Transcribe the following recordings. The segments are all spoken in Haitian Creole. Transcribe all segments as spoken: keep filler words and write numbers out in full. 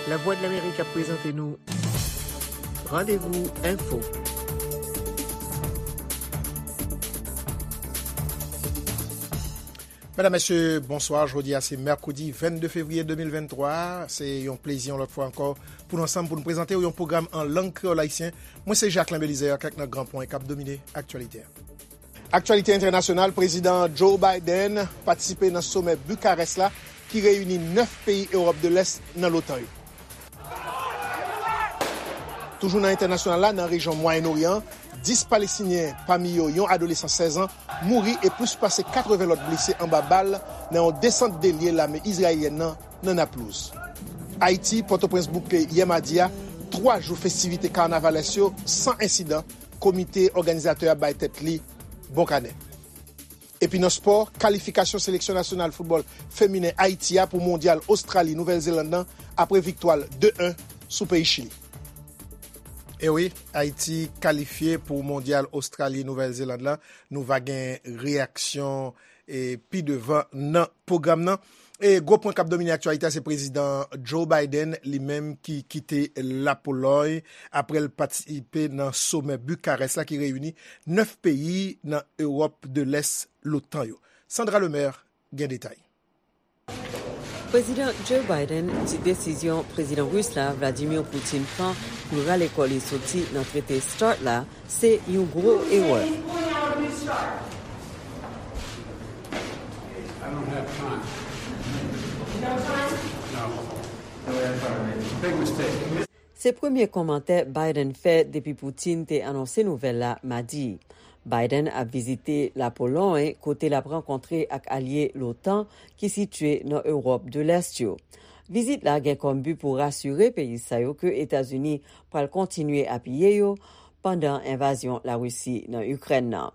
Lavwadlamerik ap prezante nou Randevou Enfo. Medam, mesye, bonswa. Jodi a se mèkredi vennde fevriye de mil venntwa. Se yon plezi yon lòt fwa ankò pou nou ansanm pou nou prezante w yon pwogram an lang kreyòl ayisyen. Mwen se Jacquelin Belizaire, kèk nan gran pwen k ap domine aktyalite a. Aktyalite entènasyonal, Prezidan Joe Biden patisipe nan somè Bukarès la ki reyini nèf peyi Ewòp de Lès nan l'OTAN yo. Toujou nan entènasyonal la, nan rejyon Mwayen Oryan, dis Palestinyen, pami yo yon adolesan sèz an, mouri e plis pase katreven lòt blese anba bal nan yon desant de lye lame izrayelyèn nan nan Naplouz. Ayiti, Pòtoprens bouke yè madi a twa jou festivite kanavalès yo san ensidan, komite òganizatè a bay tèt li bon kanè. Epi nan spò, kalifikasyon seleksyon nasyonal foutbòl feminen Ayiti a pou mondyal Ostrali Nouvèl Zeland nan apre viktwa l de en sou peyi Chili. E wi, Ayiti kalifye pou mondyal Ostrali Nouvèl Zeland la. Nou va gen reyaksyon e pi devan nan pwogram nan. E gwo pwen k ap domine aktyalite a se Prezidan Joe Biden, li menm ki kite Lapolòy apre l patisipe nan somè Bukarès la ki reyini nèf peyi nan Ewòp de Lès, l'OTAN yo. Sandra Lemaire gen detay. Prezidan Joe Biden di desizyon Prezidan Ris la, Vladimir Putin, pran pou l rale kò li soti nan trete START la se yon gwo erè. I don't have time. No. No, we have time. Big mistake. Se premye kòmantè Biden fè depi Putin te anonse nouvèl la madi. Biden ap vizite Lapolòy, kote l ap rankontre ak alye l'OTAN ki sitye nan Ewòp de Lès yo. Vizit la gen kòm bi pou rasire peyi sa yo ke Etazini pral kontinye apiye yo pandan envazyon Larisi nan Ikrèn nan.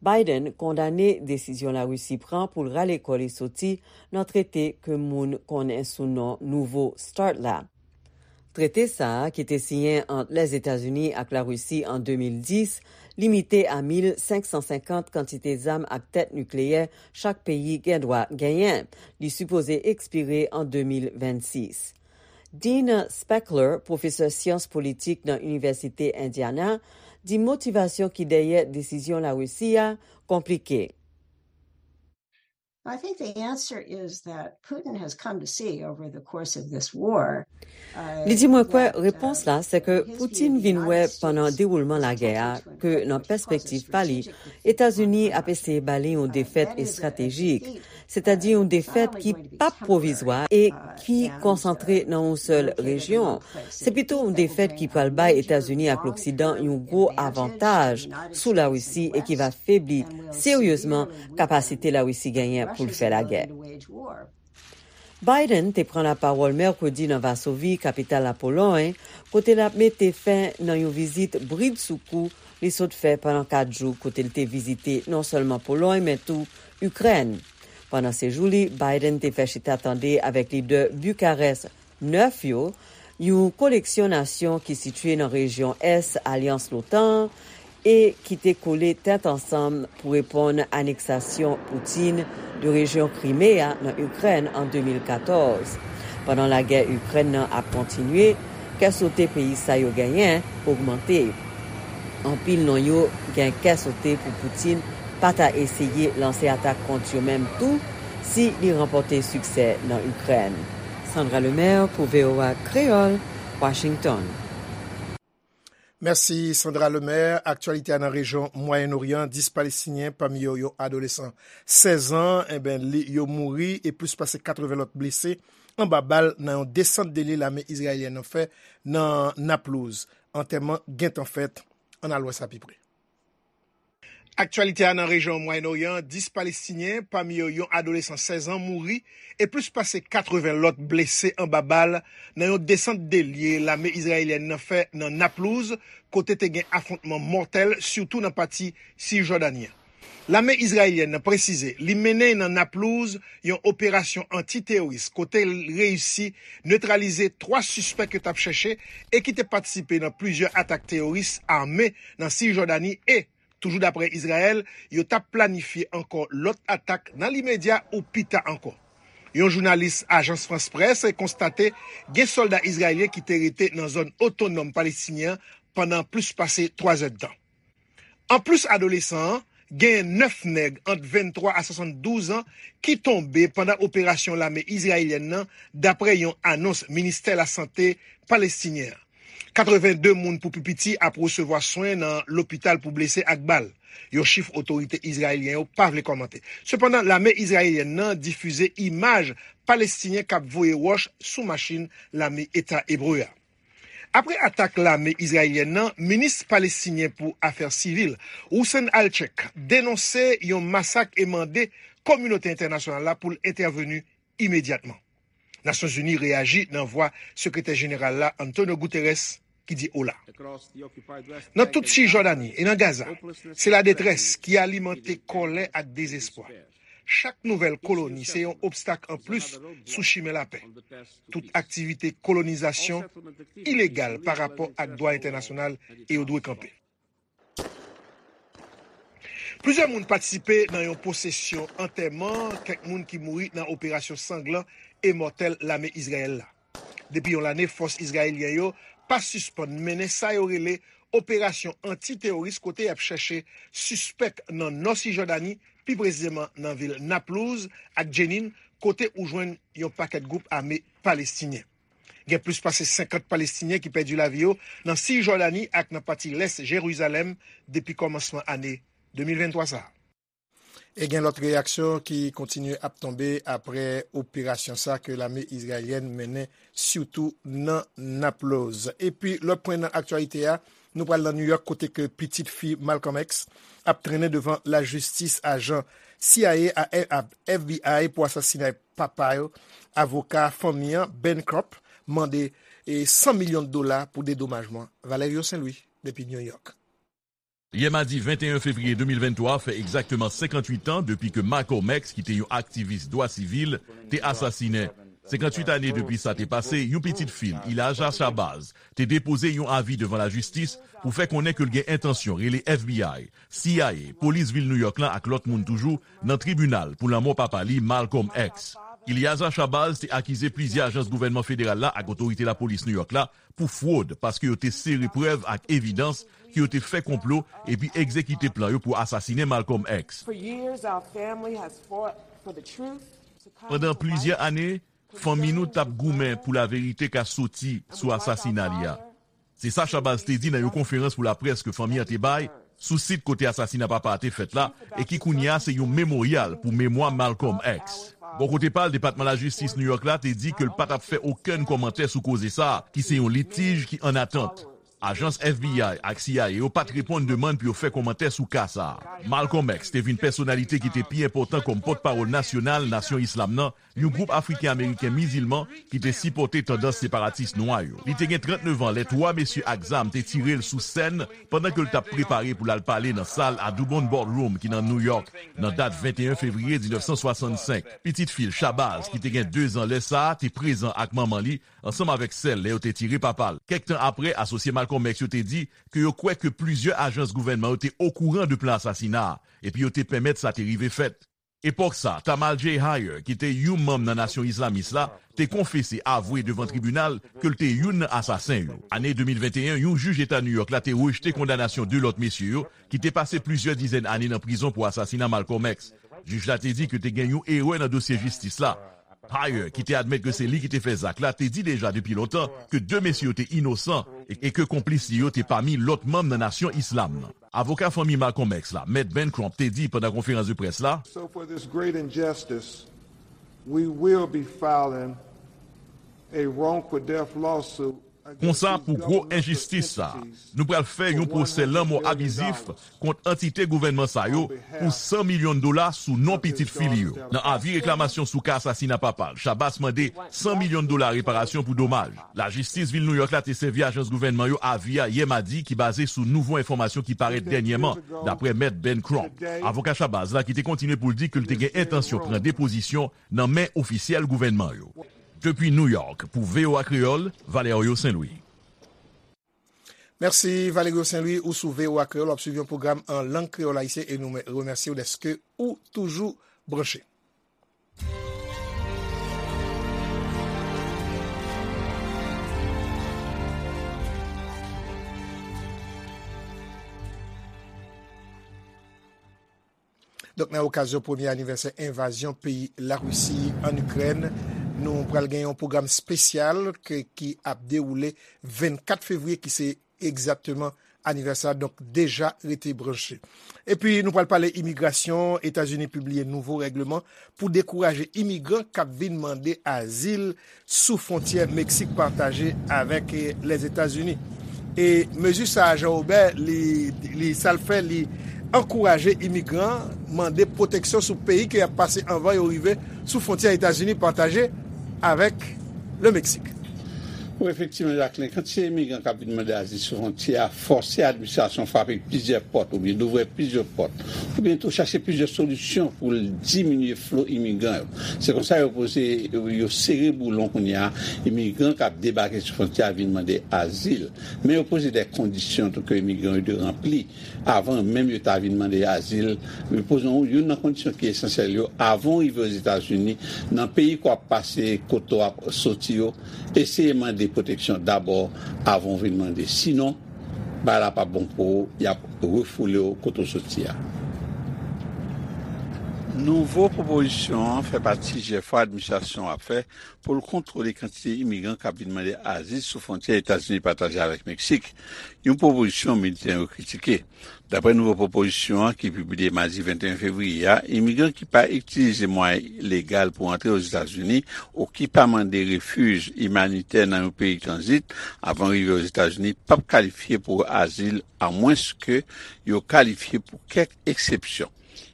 Biden kondane desizyon Larisi pran pou l rale kò li soti nan trete ke moun konnen sou non nouvo START la. Trete sa a, ki te siyen ant Lèzetazini ak Larisi an de mil dis, limite a mil senk san senkant kantite zam ak tèt nikleyè chak peyi gen dwa genyen. Li sipoze ekspire an de mil vennsis. Dean Spechler, pwofesè syans politik nan Inivèsite Indiana, di motivasyon ki dèyè desizyon Larisi a konplike. I think the answer is that Putin has come to see over the course of this war, uh, Li di, mwen kwè that, repons uh, la se ke his view Putin of the vin wè United pandan States dewoulman lagè a ke nan pèspektiv pa li, Etazini ap eseye ba li yon defèt estratejik, sètadi yon defèt ki p ap pwovizwa e ki konsantre nan yon sèl rejyon. Se pito yon defèt ki pral bay Etazini ak Loksidan yon gwo avantaj sou Larisi e ki va febli seryezman kapasite Larisi genyen pou l fè lagè. Biden te pran lapawòl mèkredi nan Vasovi, kapital Lapolòy, kote l ap mete fen nan yon vizit bridsoukou li sot fè pandan kat jou, kote l te vizite non sèlman Polòy, men tou Ikrèn. Pandan sejou li, Biden te fè chita tande avèk lidè Bukarès nèf yo, yon koleksyon nasyon ki sitye nan rejyon ès alyans l'OTAN an, e ki te kole tèt ansanm pou reponn aneksasyon Putin de rejyon Krime a nan Ikrèn an de mil katòz. Pandan lagè Ikrèn nan ap kontinye, kè sote peyi sa yo genyen ogmante. Anpil nan yo gen kè sote pou Putin pa ta eseye lanse atak kont yo menm tou si li ranpòte siksè nan Ikrèn. Sandra Lemaire pou V O A Kreyòl, Washington. Mèsi, Sandra Lemaire. Aktyalite a nan rejyon Mwayen Oryan, dis Palestinyen, pami yo yon adolesan sèz an, enben, li, yo mouri e plis pase katreven lòt blese anba bal nan yon desant de lye lame izrayelyèn nan fè nan Naplouz. Antèman gentan fèt. Ann al wè sa pi pre. Aktyalite a nan rejyon Mwayen Oryan, dis Palestinyen, pami yo yon adolesan sèz an, mouri e plis pase katreven lòt blese anba bal nan yon desant de lye lame izrayelyèn nan fè nan Naplouz, kote te gen afwontman mòtèl, sitou nan pati Sijòdani an. Lame izrayelyèn nan presize li mennen nan Naplouz yon operasyon anti-teworis, kote l reyisi netralize twa sispèk yo t ap chèche e ki te patisipe nan plizyè atak teworis ame nan Sijòdani e, toujou daprè Izrayèl, yo t ap planifye ankò lòt atak nan limedya ou pita ankò. Yon jounalis Ajans Frans Près konstate gen sòlda izrayelyen ki te rete nan zòn otonòm palestinyen an pandan plis pase twa zèdtan. Anplis adolesan an, genyen nèf nèg ant venntwa a swasanndouz an ki tonbe pandan operasyon lame izrayelyèn nan, dapre yon anons Ministè Lasante palestinyen an. Katreven de moun pou pi piti ap resevwa swen nan lopital pou blese ak bal, yon chif otorite izrayelyen yo pa vle kòmante. Sepandan, lame izrayelyèn nan difize imaj palestinyen k ap voye wòch sou machin lame Eta Ebre a. Apre atak lame izrayelyèn nan, minis palestinyen pou afè sivil, Hussein Al-Cheikh, denonse yon masak e mande kominote entènasyonal la pou l entèveni imedyatman. Nasyonzini reyaji nan vwa sekretè jeneral la, Antonio Guterres, ki di ola. Nan tout Sijòdani e nan Gaza, se ladetrès ki alimante kòlè ak dezespwa. Chak nouvèl koloni se yon obstak anplis sou chimen lapè. Tout aktivite kolonizasyon ilegal pa rapò ak dwa entènasyonal e yo dwe kanpe. Plizyè moun patisipe nan yon pwosesyon antèman kèk moun ki mouri nan operasyon sanglan e mòtèl lame Izrayèl la. Depi yon lane, fòs izrayelyen yo pa sispann mennen sa yo rele operasyon anti-teworis, kote y ap chèche sispèk nan nò Sijòdani, pi presizeman nan vil Naplouz ak Jenin, kote ou jwenn yon pakèt gwoup ame palestinyen. Gen plis pase senkant Palestinyen ki pèdi lavi yo nan Sijòdani ak nan pati lès Jerizalèm depi kòmansman ane de mil venntwa sa a. E gen lòt reyaksyon ki kontinye ap tonbe apre operasyon sa ke lame izrayelyèn mennen, sitou nan Naploz. Epi lòt pwen nan aktyalite a, nou pral nan New York, kote ke pitit fi Malcolm X ap trennen devan lajistis. Ajan C I A a, a F B I pou asasinay papa yo, avoka fanmi an, Ben Crump, mande e san milyon dola pou dedomajman. Valerio Saint Louis, depi New York. Yè madi venteyen fevriye de mil venntwa fè egzakteman senkantuit an depi ke Malcolm X, ki te yon aktivis dwa sivil, te asasinen. Senkantuit ane depi sa te pase, yon pitit fi l, Elijah Shabazz, te depoze yon avi devan lajistis pou fè konnen ke l gen entansyon rele F B I, C I A, polis vil New York lan ak lòt moun toujou nan tribinal pou lanmò papa li, Malcolm X. Elijah Shabazz te akize plizyè ajans gouvènman federal la ak otorite lapolis New York la pou fwod, paske yo te sere prèv ak evidans ke yo te fè konplo epi egzekite plan yo pou asasinen Malcolm X. Pandan plizyè ane, fanmi nou t ap goumen pou laverite ka soti sou asasina li a. Se sa Shabazz te di nan yon konferans pou laprès ke fanmi an te bay sou sit kote asasina papa a te fèt la, e ki kounye a se yon memoryal pou memwa Malcolm X. Bò kote pa l, Depatman Lajistis New York la te di ke l pa t ap fè okenn kòmantè sou koze sa a, ki se yon litij ki an atant. Ajans F B I ak C I A yo pa t reponn demann pou yo fè kòmantè sou ka sa a. Malcolm X te vin pèsonalite ki te pi enpòtan kòm pòtpawòl nasyonal Nasyon Islam nan, yon gwoup Afriken Ameriken mizilman ki te sipòte tandans separatis nwa yo. Li te gen trannnev an lè twa mesye ak zam te tire l sou sèn pandan ke l t ap prepare pou l al pale nan sal Audubon Ballroom ki nan New York nan dat venteyen fevriye diznèf san swasannsenk. Pitit fi l, Shabazz, ki te gen dezan lè sa a, te prezan ak manman li ansanm avèk sè l lè yo te tire papa l. Kèk tan apre, asosye Malcolm X yo te di ke yo kwè ke plizyè ajans gouvènman yo te okouran de plan asasina a, epi yo te pèmèt sa te rive fèt. Epòk sa, Tamal J. Heyer, ki te yon manm nan Nasyon Islamis la, te konfese, avwe devan tribinal ke l te youn nan asasen yo. Ane de mil venteyen, yon jij eta New York la te rejte kondanasyon de lòt mesye yo ki te pase plizyè dizèn ane nan prizon pou asasina Malcolm X. Jij la te di ke te gen yon erè nan dosye jistis la. Heyer, ki te admèt ke se li ki te fè zak la, te di deja depi lontan ke de mesye yo te inosan e, e ke konplis li yo te pami lòt manm nan Nasyon Islam nan. Avoka fanmi Malcolm X la, Mèt Ben Crump, te di pandan konferans de près la, So for this great injustice, we will be filing a wrongful death lawsuit. Konsa, pou gwo enjistis sa a, nou pral fè yon pwosè lanmò abizif kont antite gouvènman sa yo pou san milyon dola sou non pitit fi li yo. Nan avi reklamasyon sou ka asasina papa l, Shabazz mande san milyon dola reparasyon pou domaj. Lajistis vil New York la te sèvi ajans gouvènman yo avi a yè madi, ki baze sou nouvo enfòmasyon ki parèt dènyèman, dapre Mèt Ben Crump. Avoka Shabazz la ki te kontinye pou l di ke l te gen entansyon pran depozisyon nan men ofisyèl gouvènman yo. Depi New York, pou V O A Kreyòl, Valerio Saint Louis. Mèsi Valerio Saint Louis, ou sou V O A Kreyòl, w ap swiv yon pwogram an lang kreyòl ayisyen e nou remèsye w dèske ou toujou branche. Donk, nan okazyon premye anivèsè envazyon peyi Larisi ann Ikrèn, nou pral gen yon pwogram espesyal ke, ki ap dewoule vennkat fevriye, ki se egzakteman anivèsè a, donk deja rete branche. Epi, nou pral pale imigrasyon. Etazini pibliye nouvo règleman pou dekouraje imigran k ap vin mande azil sou fwontyè Meksik pataje avèk, eh, Lèzetazini. E mezi sa a, Jean Robert, li, li, sa l fè, li ankouraje imigran mande pwoteksyon sou peyi ke y ap pase anvan yo rive sou fwontyè Etazini pataje avèk le Meksik. Wi, efektivman, Jacqueline, kantite imigran k ap vin mande azil sou fwontyè a fòse administrasyon frape plizyè pòt oubyen louvri plizyè pòt, oubyen tou chache plizyè solisyon pou l diminye flo imigran yo. Se konsa yo poze, yo sere boulon kounye a, imigran k ap debake sou fwontyè a vin mande azil. Men yo poze de kondisyon tou ke imigran yo dwe ranpli avan menm yo ta vin mande azil. Yo poze yon, youn nan kondisyon ki esansyèl yo, avan w rive Ozetazini, nan peyi ke w ap pase, kote w ap soti yo, eseye mande pwoteksyon dabò avan w vin mande. Sinon, bagay la p ap bon pou ou, y ap refoule w kote w soti a. Nouvo pwopozisyon an fè pati jèfò administrasyon an ap fè pou l kontwole kantite imigran k ap vin mande azil sou fwontyè Etazini pataje avèk Meksik, yon pwopozisyon militè yo kritike. Daprè nouvo pwopozisyon an ki pibliye madi venteyen fevriye a, imigran ki pa itilize mwayen legal pou antre Ozetazini ou ki pa mande refij imanitè nan yon peyi tranzit avan rive Ozetazini p ap kalifye pou azil, amwenske yo kalifye pou kèk eksepsyon.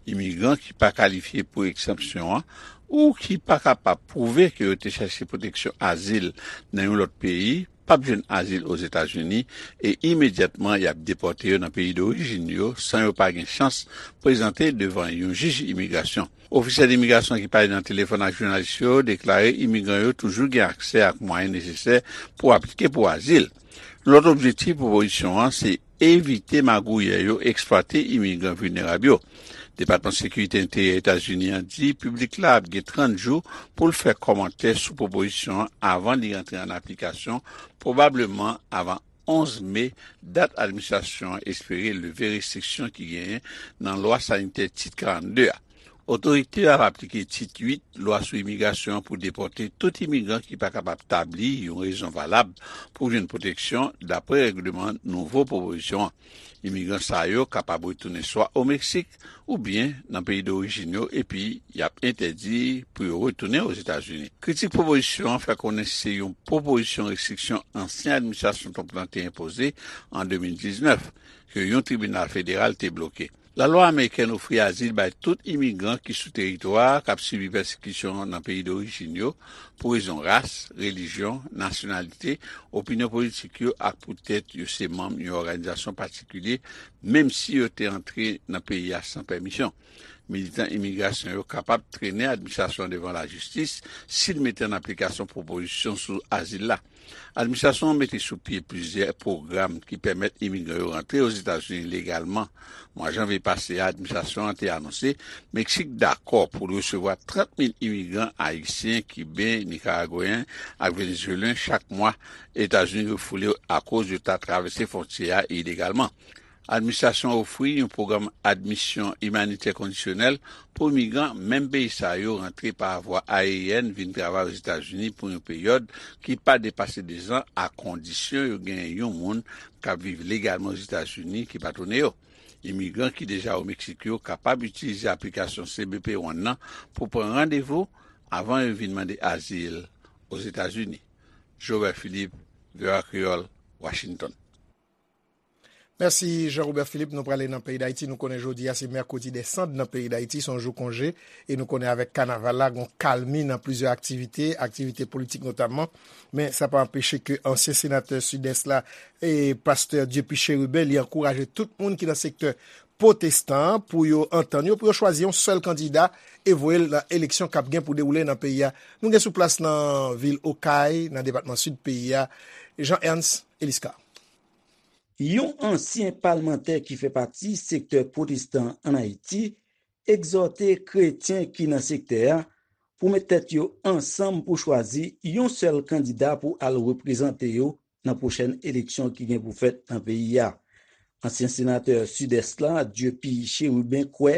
Imigran ki pa kalifye pou eksepsyon an ou ki pa kapab pwouve ke yo te chache pwoteksyon azil nan yon lòt peyi p ap jwenn azil Ozetazini e imedyatman y ap depòte yo nan peyi dorijin yo san yo pa gen chans prezante devan yon jij imigrasyon. Ofisyèl imigrasyon ki pale nan telefòn ak jounalis yo deklare imigran yo toujou gen aksè ak mwayen nesesè pou aplike pou azil. Lòt objektif pwopozisyon an se evite magouyè yo eksplwate imigran vilnerab yo. Depatman Sekirite Enteryè Etazini an di piblik la ap gen trant jou pou l fè kòmantè sou pwopozisyon an avan li rantre an aplikasyon, pwobableman avan onz me, dat administrasyon an espere leve restriksyon ki genyen nan lwa sanitè Tit karannde a. Otorite yo ap aplike Tit uit, lwa sou imigrasyon an, pou depòte tout imigran ki pa kapab tabli yon rezon valab pou jwenn pwoteksyon, daprè règleman nouvo pwopozisyon an. Imigran sa yo kapab retounen swa o Meksik oubyen nan peyi dorijin yo, epi y ap entèdi pou yo retounen Ozetazini. Kritik pwopozisyon an fè konnen se yon pwopozisyon restriksyon ansyen administrasyon Trump lan te enpoze an de mil diznèf, ke yon tribinal federal te bloke. Lalwa amerikèn ofri azil bay tout imigran ki sou teritwa a k ap sibi pèsekisyon nan peyi dorijin yo pou rezon ras, relijyon, nasyonalite, opinyon politik yo ak poutèt yo se manm yon òganizasyon patikilye, menm si yo te antre nan peyi a san pèmisyon. Militan imigrasyon yo kapab trennen administrasyon an devan lajistis si l mete an aplikasyon pwopozisyon sou azil la. Administrasyon an mete sou pye plizyè pwogram ki pèmèt imigran yo rantre Ozetazini legalman. Mwa janvye pase a, administrasyon an te anonse Meksik dakò pou l resevwa trant mil imigran ayisyen, kiben, nikaragweyen ak venezuelyen chak mwa Etazini refoule akoz yo ta travèse fwontyè a ilegalman. Administrasyon an ofri yon pwogram admisyon imanitè kondisyonèl pou imigran menm peyi sa yo rantre pa vwa ayeryèn vin travay Ozetazini pou yon peryòd ki pa depase dezan, a kondisyon yo genyen yon moun k ap viv legalman Ozetazini ki patwone yo. Imigran ki deja o Meksik yo kapab itilize aplikasyon C B P One nan pou pran randevou avan yo vin mande azil Ozetazini. Jobert Philippe, V O A Kreyòl, Washington. Mèsi, Jean Robert Philippe. Nou prale nan peyi Dayiti. Nou konnen jodi a se mèkredi dè Sand nan peyi Dayiti, se yon jou konje. E nou konnen avèk kanaval la, gon kalmi nan plizyè aktivite, aktivite politik notamman. Men sa pa anpeche ke ansyen senatè Sidès la, e pastè Dieupy Chérubin, li ankouraje tout moun ki nan sektè pwotestan an pou yo antann yo, pou yo chwazi yon sèl kandida e voye l nan eleksyon k ap gen pou dewoule nan peyi a. Nou gen sou plas nan vil Okay, nan depatman Sid peyi a, Jean Ernst Eliscar. Yon ansyen palmantè ki fè pati sektè pwotestan ann Ayiti egzòte kretyen ki nan sektè a pou met tèt yo ansanm pou chwazi yon sèl kandida pou al reprezante yo nan pwochèn eleksyon ki gen pou fèt nan peyi a. Ansyen senatè Sidès la, Dieupy Chérubin, kwè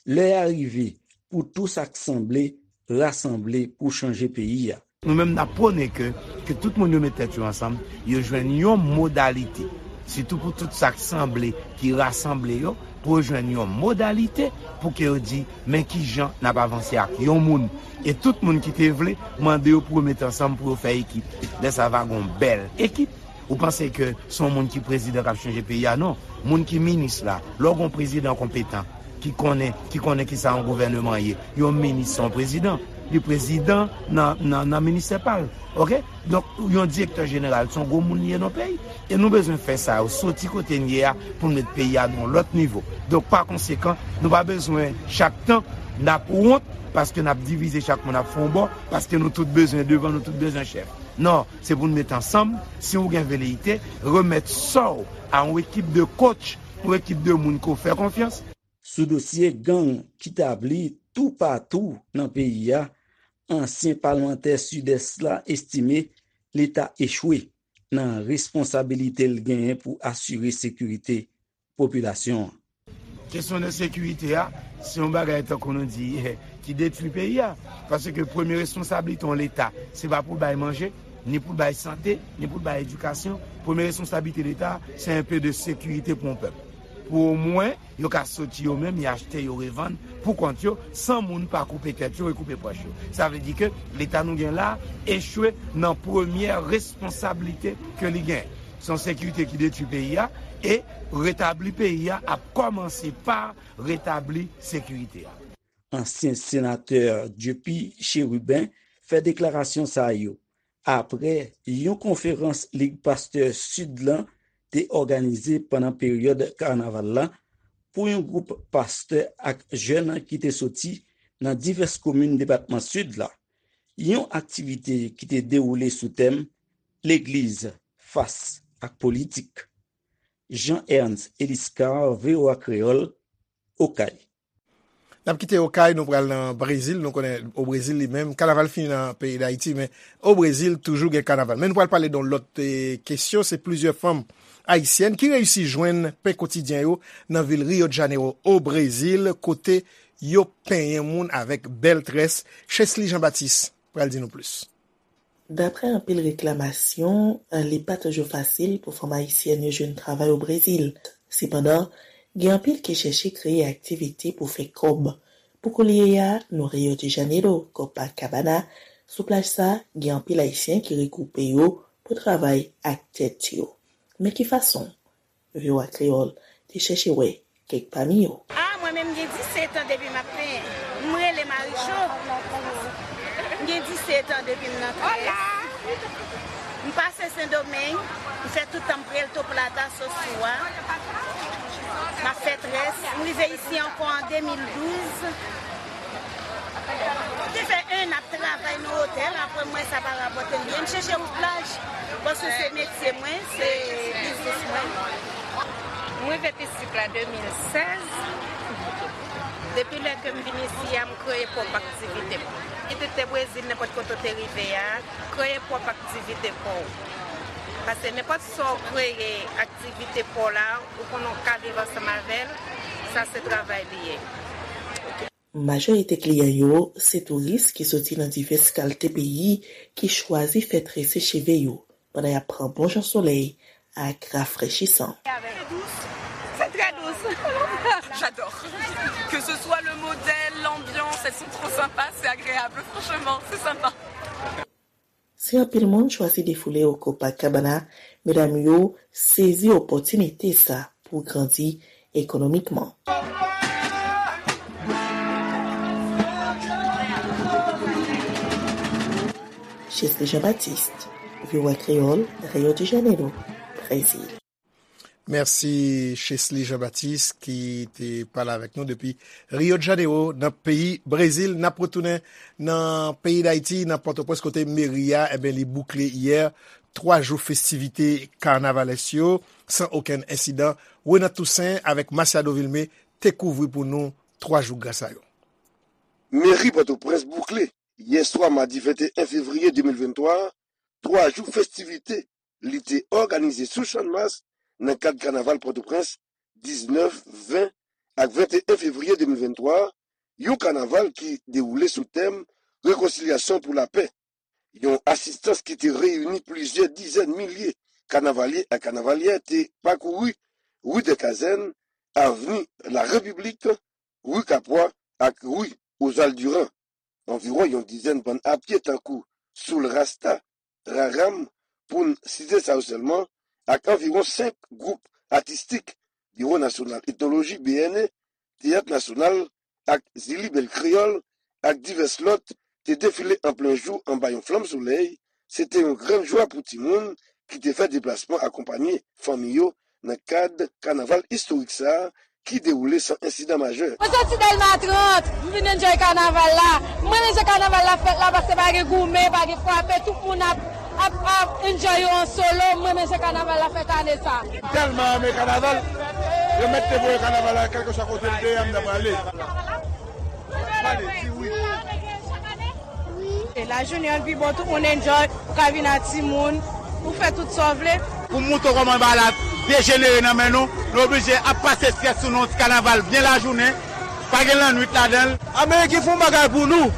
Lè a rive pou tou sa k sanble rasanble pou chanje peyi a. Nou menm n ap pwone ke, ke tout moun yo met tèt yo ansanm, yo jwenn yon modalite. Sitou pou tout sa k sanble, ki rasanble yo, pou yo jwenn yon modalite pou ke yo di, men kijan n ap avanse ak yon moun. E tout moun ki te vle, mande yo pou yo met ansanm pou yo fè ekip. Lè sa va gon bèl ekip. Ou panse ke se yon moun ki prezidan k ap chanje peyi a? Non. Moun ki minis la, lè w gon prezidan konpetan, ki konnen, ki konnen kisa yon gouvèneman ye, yon minis se yon prezidan. Li prezidan nan, nan, nan ministè pa l. Oke? Donk, yon direktè jeneral se yon gwo moun li ye nan peyi. E nou bezwen fè sa yo, soti kote n ye a, pou n met peyi a nan yon lòt nivo. Donk, pa konsekan, nou pa bezwen chak tan n ap wont, paske n ap divize chak moun ap fè yon bò, paske nou tout bezwen devan, nou tout bezwen chèf. Non, se pou n met ansanm, si w gen veleyite, remèt sa w a yon ekip de coach, yon ekip de moun ke w fè konfyans. Sou dosye gang ki tabli toupatou nan peyi a, ansyen palmantè Sidès la estime Leta echwe nan responsabilite l genyen pou asire sekirite popilasyon an. Kesyon de sekirite a, se yon bagay tankou nou di, ki detwi peyi a. Paske premye responsablite yon Leta, se pa pou l bay manje, ni pou l bay sante, ni pou l bay edikasyon. Premye responsablite Leta, se enpe de sekirite pou yon pèp. Pou omwen, yo ka soti yo menm, y achte, yo revann, pou kont yo, san moun pa koupe tèt yo e koupe pòch yo. Sa vle di ke Leta nou gen la, echwe nan premyè responsablite ke li gen. Se yon sekirite ki detwi peyi a, e retabli peyi a ap kòmanse pa retabli sekirite a. Ansyen senatè Dieupy Chérubin fè deklarasyon sa yo apre yon konferans Lig Pastè Sid lan te òganize pandan peryòd kanaval la pou yon gwoup pastè ak jèn ki te soti nan divès komin depatman Sid la. Yon aktivite ki te dewoule sou tèm Legliz fas ak politik. Jean Ernst Eliscar, V O A Kreyòl, Okay. N ap kite Okay, nou pral nan Brezil. Nou konnen o Brezil li menm, kanaval fini nan peyi Dayiti, men o Brezil toujou gen kanaval. Men nou pral pale de yon lòt eh, kesyon, se plizyè fanm ayisyèn ki reyisi jwenn pen kotidyen yo nan vil Rio de Janeiro, o Brezil, kote yo penyen moun avèk bèl très. Chesly Jean Baptiste pral di nou plis. Daprè anpil reklamasyon, li pa toujou fasil pou fanm ayisyèn yo jwenn travay o Brezil. Sepandan, gen anpil ki chèche kreye aktivite pou fè kòb. Pou koulye a, nou Rio de Janeiro, Copacabana, sou plaj sa, gen anpil ayisyen ki regwoupe yo pou travay ak tèt yo. Men ki fason? V O A Kreyòl te chèche wè kèk pami yo. A, mwen menm gen disèt an depi m ap penyen. M rele Maricho. M gen disèt an depi m nan très. M pase Sendomeng, m fè tout tan m Puerto Plata, Sosua. M ap fè très. M rive isi ankò an de mil douz. Te fè en an ap travay nan otèl, apre m wè sa pa rapòte m byen. M chèche wout plaj, paske se metye mwen, se biznis mwen. M rive Pisik la de mil sèz. Depi lè ke m vin isi a, m kreye pwòp aktivite m. Kit ou te Brezil, nenpòt kote w te rive a, kreye pwòp aktivite pa w. Paske nenpòt sa w kreye aktivite pa w la, ou konnen w ka viv ansanm avè l, sa se travay li ye. Majorite kliyan yo se touris ki soti nan divès kalte peyi ki chwazi fè trese cheve yo pandan y ap pran bon jan solèy ak rafrechisan. C'est très douce. J'adore. Que ce soit le modèle, l'ambiance, elles sont trop sympas, c'est agréable, franchement, c'est sympa. Si anpil moun chwazi defoule o Copacabana, medam yo sezi opòtinite sa pou grandi ekonomikman. Chesly Jean-Baptiste, V O A Kreyòl, Rio de Janeiro, Brezil. Mèsi Chesly Jean-Baptiste ki te pale avèk nou depi Rio de Janeiro nan peyi Brezil. N ap retounen nan peyi Dayiti, nan Pòtoprens kote meri a, enben, li boukle yè twa jou festivite kanavalès yo san okenn ensidan. Renat Toussaint avèk Masiado Vilmé te kouvri pou nou twa jou gra sa yo. Meri Pòtoprens boukle yè swa madi venteyen fevriye de mil venntwa a, twa jou festivite li te òganize sou Channmas nan kad kanaval Pòtoprens diznèf, ven ak venteyen fevriye de mil venntwa, yon kanaval ki dewoule sou tèm Rekonsilyasyon pou lapè, yon asistans ki te reyini plizyè dizèn milye kanavalye ak kanavalyè te pakouri ri dè Kazèn, avni Larepiblik, ri Kapwa ak ri Ozal Diran. Anviwon yon dizèn bann apye tankou Soul Rasta, Raram, pou n site sa yo sèlman, ak anviwon senk gwoup atistik, Biwo Nasyonal Etnoloji, B N E, Teyat Nasyonal, ak Zili Bèl Kreyòl, ak divès lòt, te defile an plen jou anba yon flanm solèy. Se te yon grann jwa pou timoun ki te fè deplasman akonpanye fanmi yo nan kad kanaval istorik sa a ki dewoule san ensidan majè. Mwen soti Dèlma trant, m vin enjoy kanaval la. M renmen jan kanaval la fèt la, paske pa gen goumen, pa gen frape, tout moun ap, ap, ap enjoy yo an solo. M renmen jan kanaval la fèt ane sa. Tèlman renmen kanaval, yo mèt te voye kanaval la, kèlkeswa kote l te ye, m t ap prale. Pale, di wi. E lajounen an pi bon, tout moun enjoy, ou ka vin ak timoun, ou fè tout sa w vle. Pou m montre w kòman bagay la dejenere nan men nou, nou oblije ap pase estrès sou nou, ti kanaval byen lajounen, pa gen lannwit ladan l. Ameriken fè yon bagay pou nou.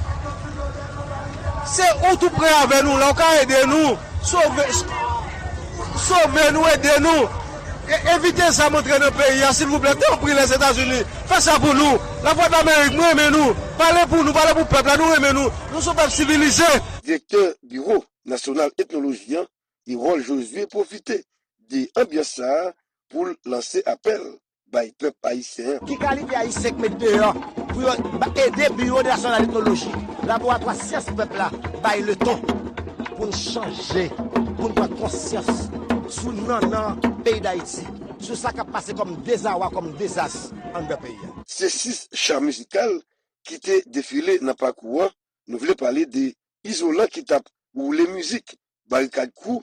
Se ou tou pre avè nou, la ou ka ede nou. Sove, sove nou, ede nou. E, evite zam antre nan peyi a, silvouplè. Tanpri, Lèzetazini, fè sa pou nou. Lavwadlamerik, nou renmen nou. Pale pou nou, pale pou pèp la, nou renmen nou. Nou se yon pèp sivilize. Direktè Biwo Nasyonal Etnoloji an, Erol Josué, pwofite de anbyans sa a pou l lanse apèl bay pèp ayisyen an. Ki kalite Ayisyen k met deyò pou yo ba- ede Biwo Nasyonal Etnoloji, Laboratwa Syans Pèp la, bay leton pou n chanje, pou n pran konsyans sou nannan peyi Dayiti, sou sa k ap pase kòm dezawa, kòm dezas anndan peyi a. Se sis cha mizikal ki te defile nan pakou an. Nou vle pale de Izolan ki t ap woule mizik, Barikad Crew,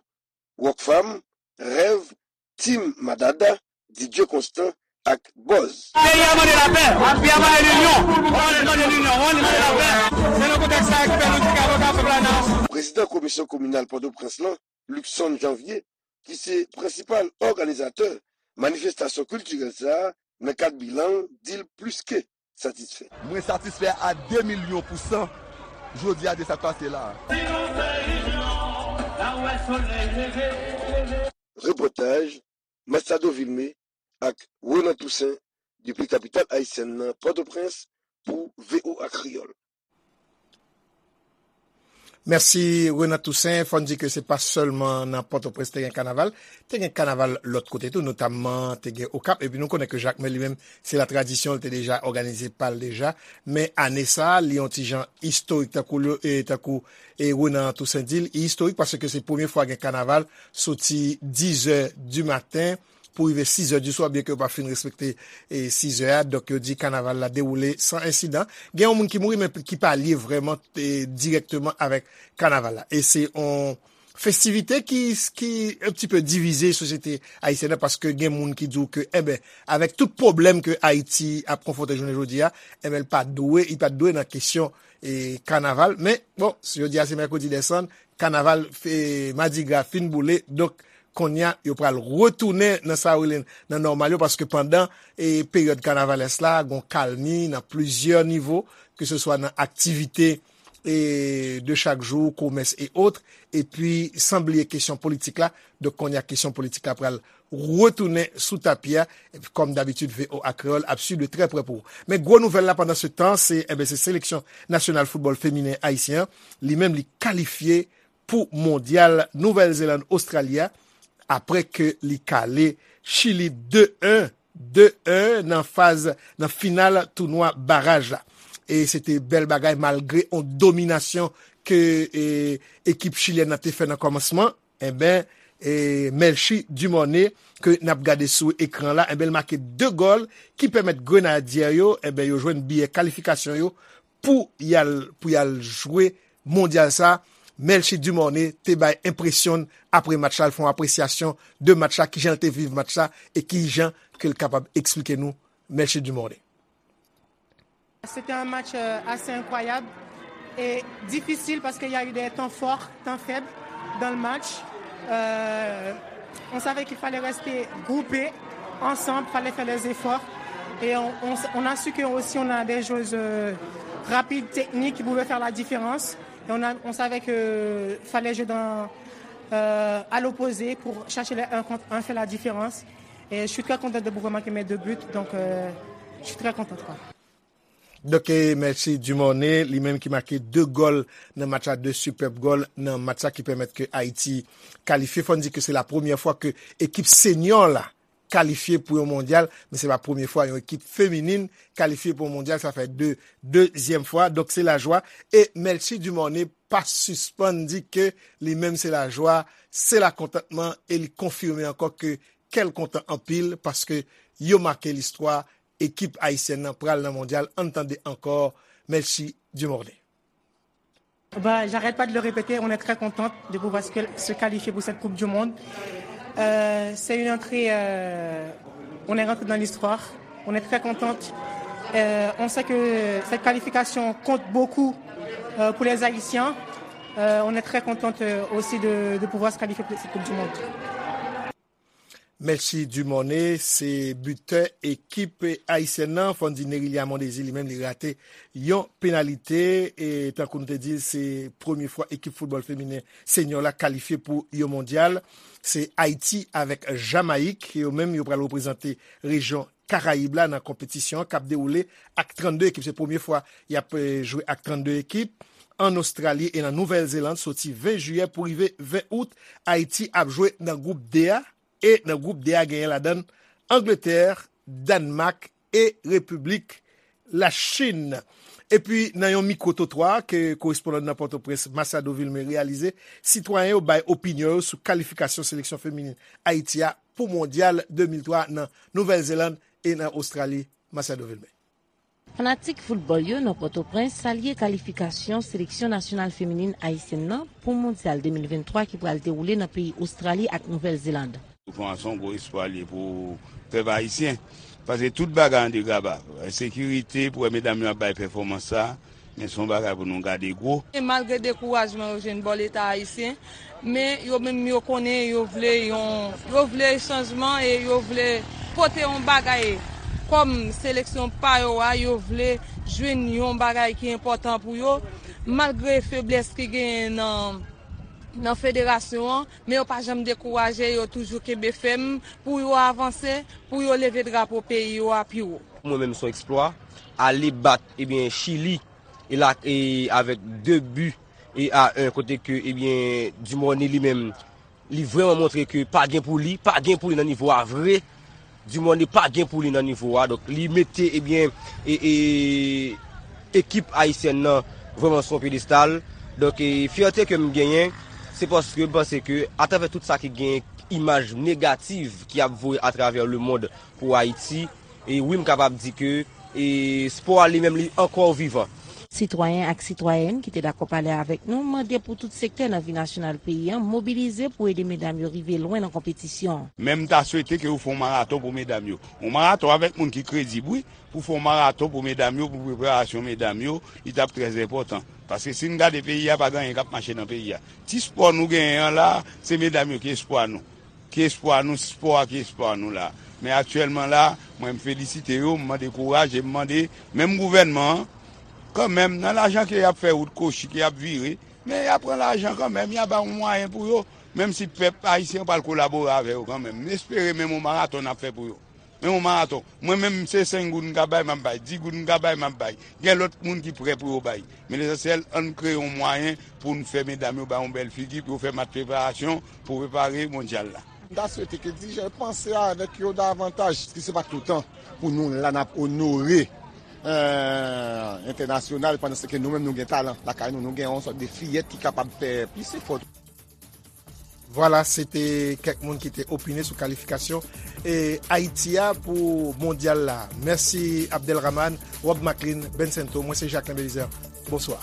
Rockfam, Rèv, Team Madada, D J Constant ak Buzz. Peyi a mande lapè, peyi a mande linyon, mande, mande linyon, mande, mande lapè. Se nan kontèks sa a ki fè nou di ke avoka pèp la nan. Prezidan Komisyon Kominal Pòtoprens lan, Luckson Janvier, ki se prensipal òganizatè manifestasyon kiltirèl sa a, nan kad bilan l, di l plis ke satisfè. Mwen satisfè a de milyon pou san jodi a de sa k pase la a. Repòtaj, Machado Vilmé ak Renan Toussaint, depi kapital ayisyèn nan, Pòtoprens, pou V O A Kreyòl. Mèsi, Renan Toussaint. Fò n di ke se pa sèlman nan Pòtoprens te gen kanaval, te gen kanaval lòt kote tou, notamman te gen Okap. Epi nou konnen ke Jakmèl li menm, se latradisyon, li te deja òganize pa l deja. Men ane sa a, li yon ti jan istorik, tankou, e, tankou, e, Renan Toussaint di l, li istorik paske se premye fwa gen kanaval soti dizè di maten pou rive sizè di swa, byen ke yo pa fin respekte, e, sizè a. Donk, yo di kanaval la dewoule san ensidan. Gen yon moun ki mouri, men ki pa lye vrèman, e, dirèkteman avèk kanaval la. E se yon festivite ki, ki un petit peu divize sosyete ayisyèn nan, paske gen moun ki di w ke, enben, avèk tout pwoblèm ke Ayiti ap konfwonte jounen jodi a, enben, l pa dwe, li pa t dwe nan kesyon, e, kanaval. Men, bon, jodi a se mèkredi dèsann, kanaval, e, madigra fin boule, donk, kounye a, yo pral retounen nan sa yo rele nan nòmal yo, paske pandan, e, peryòd kanavalès la, gon kalmi nan plizyè nivo, ke se swa nan aktivite, e, de chak jou, komès e ot, epi san bliye kesyon politik la. Donk, kounye a, kesyon politik la pral retounen sou tapi a, epi kòm dabitid, V O A Kreyòl ap swiv de trè prè pou ou. Men gwo nouvèl la pandan se tan, se, enben, se seleksyon nasyonal foutbòl feminen ayisyen an, li menm li kalifye pou mondyal Nouvèl Zeland Ostrali a, apre ke li kale Chili de en, de en nan faz, nan final tounwa baraj la. E se te bèl bagay malgre on dominasyon ke, e, ekip chilyèn nan te fè nan kòmansman. Enben, e, Melchie Dumornay, ke n ap gade sou ekran la, enben, l make de gòl ki pèmèt Grenadyè yo, enben, yo jwenn biyè kalifikasyon yo pou y al, pou y al jwe mondyal sa. Melchie Dumornay te bay enpresyon n apre match la, l fè yon apresyasyon de match la, kijan l te viv match la, e kijan ke l kapab eksplike nou Melchie Dumornay. C'était un match, euh, assez incroyable et difficile parce qu'il y a eu des temps forts, temps faibles dans le match. Euh, on savait qu'il fallait rester groupés, ensemble, fallait faire les efforts. Et on, on, on a su que aussi on a des joueuses euh, rapides, techniques, qui pouvaient faire la différence. Et on, a, on savait que fallait jouer dans, euh, à l'opposé pour chercher les un contre un, faire la différence. Et je suis très contente de pouvoir marquer mes deux buts, donc euh, je suis très contente, quoi. Donk, eh, Melchie Dumornay, li menm ki make de gòl nan match la, de sipèb gòl nan match la ki pèmèt ke Ayiti kalifye. Fò n di ke se la premyè fwa ke ekip senyò la kalifye pou yon mondyal, men se pa premye fwa yon ekip feminin kalifye pou yon mondyal, sa fè de dezyèm fwa. Donk, se lajwa. E Melchie Dumornay pa sispann di ke li menm se lajwa, se lakontantman, e li konfime ankò ke kè l kontan anpil paske yo make listwa, ekip ayisyèn nan pral nan mondyal. Ann tande ankò Melchie Dumornay. Bah, j'arrête pas de le répéter, on est très contente de pouvoir se, se qualifier pour cette Coupe du Monde. Euh, c'est une entrée, euh, on est rentré dans l'histoire, on est très contente. Euh, on sait que cette qualification compte beaucoup euh, pour les Haïtiens. Euh, on est très contente euh, aussi de, de pouvoir se qualifier pour cette Coupe du Monde. Melchie Dumornay se bitè ekip ayisyèn nan. Fò n di Nerilia Mondésir li menm li rate yon penalite. E tankou nou te di l, se premye fwa ekip foutbòl feminen senyò la kalifye pou yon mondyal. Se Ayiti avèk Jamayik. Yo menm yo pral reprezante rejyon Karayib la nan konpetisyon an k ap dewoule ak trannde ekip. Se premye fwa y ap eh, jwe ak trannde ekip. An Ostrali e nan Nouvèl Zeland soti ven jiyè pou rive ven out. Ayiti ap jwe nan gwoup D a, e nan gwoup D a genyen ladan l Angletè, Dannmak e Repiblik Lachin. Epi nan yon mikwo twotwa ke korespondan nan Pòtoprens, Machado Vilmé, reyalize, sitwayen yo bay opinyon yo sou kalifikasyon seleksyon feminin Ayiti a pou Mondyal de mil twa nan Nouvèl Zeland e nan Ostrali. Machado Vilmé. Fanatik foutbòl yo nan Pòtoprens salye kalifikasyon seleksyon nasyonal feminin ayisyèn nan pou Mondyal de mil venntwa ki pral dewoule nan peyi Ostrali ak Nouvèl Zeland. Pou kòmanse, yon gwo espwa l ye pou pèp ayisyen. Paske tout bagay an degaba. Ensekirite, pou wè medam yo ap bay pèfòmans sa, men se yon bagay pou nou gade gwo. E malgre dekourajman yo jwenn bò Leta ayisyen, men yo menm yo konnen yo vle yon, yo vle chanjman e yo vle pote yon bagay kòm seleksyon pa yo a, yo vle jwenn yon bagay ki enpòtan pou yo, malgre feblès ki genyen nan, nan federasyon an, men yo pa janm dekouraje, yo toujou kenbe fèm pou yo avanse, pou yo leve drapo peyi yo a pi wo. Pou mwen menm se yon eksplwa, ale bat, ebyen, Chili, e la, e avèk de bi e a en, kote ke, ebyen, Dumornay li menm, li vrèman montre ke pa gen pou li, pa gen pou li nan nivo a vre. Dumornay pa gen pou li nan nivo a, donk li mete, ebyen, e, e, ekip ayisyèn nan vrèman sou yon pyedestal. Donk, e, fyète ke m genyen, se paske m panse ke atravè tout sa ki gen imaj negatif ki ap voye atravè lemonn pou Ayiti, e wi, m kapab di ke, e, spò a li menm li ankò vivan. Sitwayen ak sitwayèn ki te dakò pale avèk nou mande pou tout sektè nan vi nasyonal peyi an mobilize pou ede medam yo rive lwen nan konpetisyon an. Men m ta swete ke yo fè yon maraton pou medam yo. Yon maraton avèk moun ki kredib, wi. Pou fè yon maraton pou medam yo, pou preparasyon medam yo, li t ap trè enpòtan. Paske si n gade peyi a, pa gen anyen k ap mache nan peyi a. Ti spò nou genyen an la, se medam yo ki espwa nou. Ki espwa nou, spò a ki espwa nou la. Men aktyèlman la, mwen m felisite yo, m mande kouraj e m mande menm gouvènman an, kanmenm, nan lajan ke y ap fè wout kochi, ke y ap vire, men y a pran lajan kanmenm, y a ba yon mwayen pou yo, menm si pèp ayisyen pral kolabore avè yo kanmenm. M espere menm yon maraton n ap fè pou yo. Men yon maraton. Mwen menm, se senk goud m ka bay, m ap bay. Dis goud m ka bay, m ap bay. Gen lòt moun ki prè pou yo bay. Men lesansyèl, ann kreye yon mwayen pou n fè medam yo bay yon bèl figi, pou yo fè match preparasyon, pou prepare mondyal la. M ta swete ke dirijan yo panse avèk yo davantaj, paske se pa toutan pou nou la n ap onore entènasyonal, pandan se ke nou menm nou gen talan lakay nou, nou gen yon sòt de fiyèt ki kapab fè plis efò. Vwala, se te kèk moun ki te opine sou kalifikasyon e Ayiti a pou mondyal la. Mèsi Abdelrahman, Rob Maclean, Bencento, mwen se Jacquelin Belizaire. Bonswa.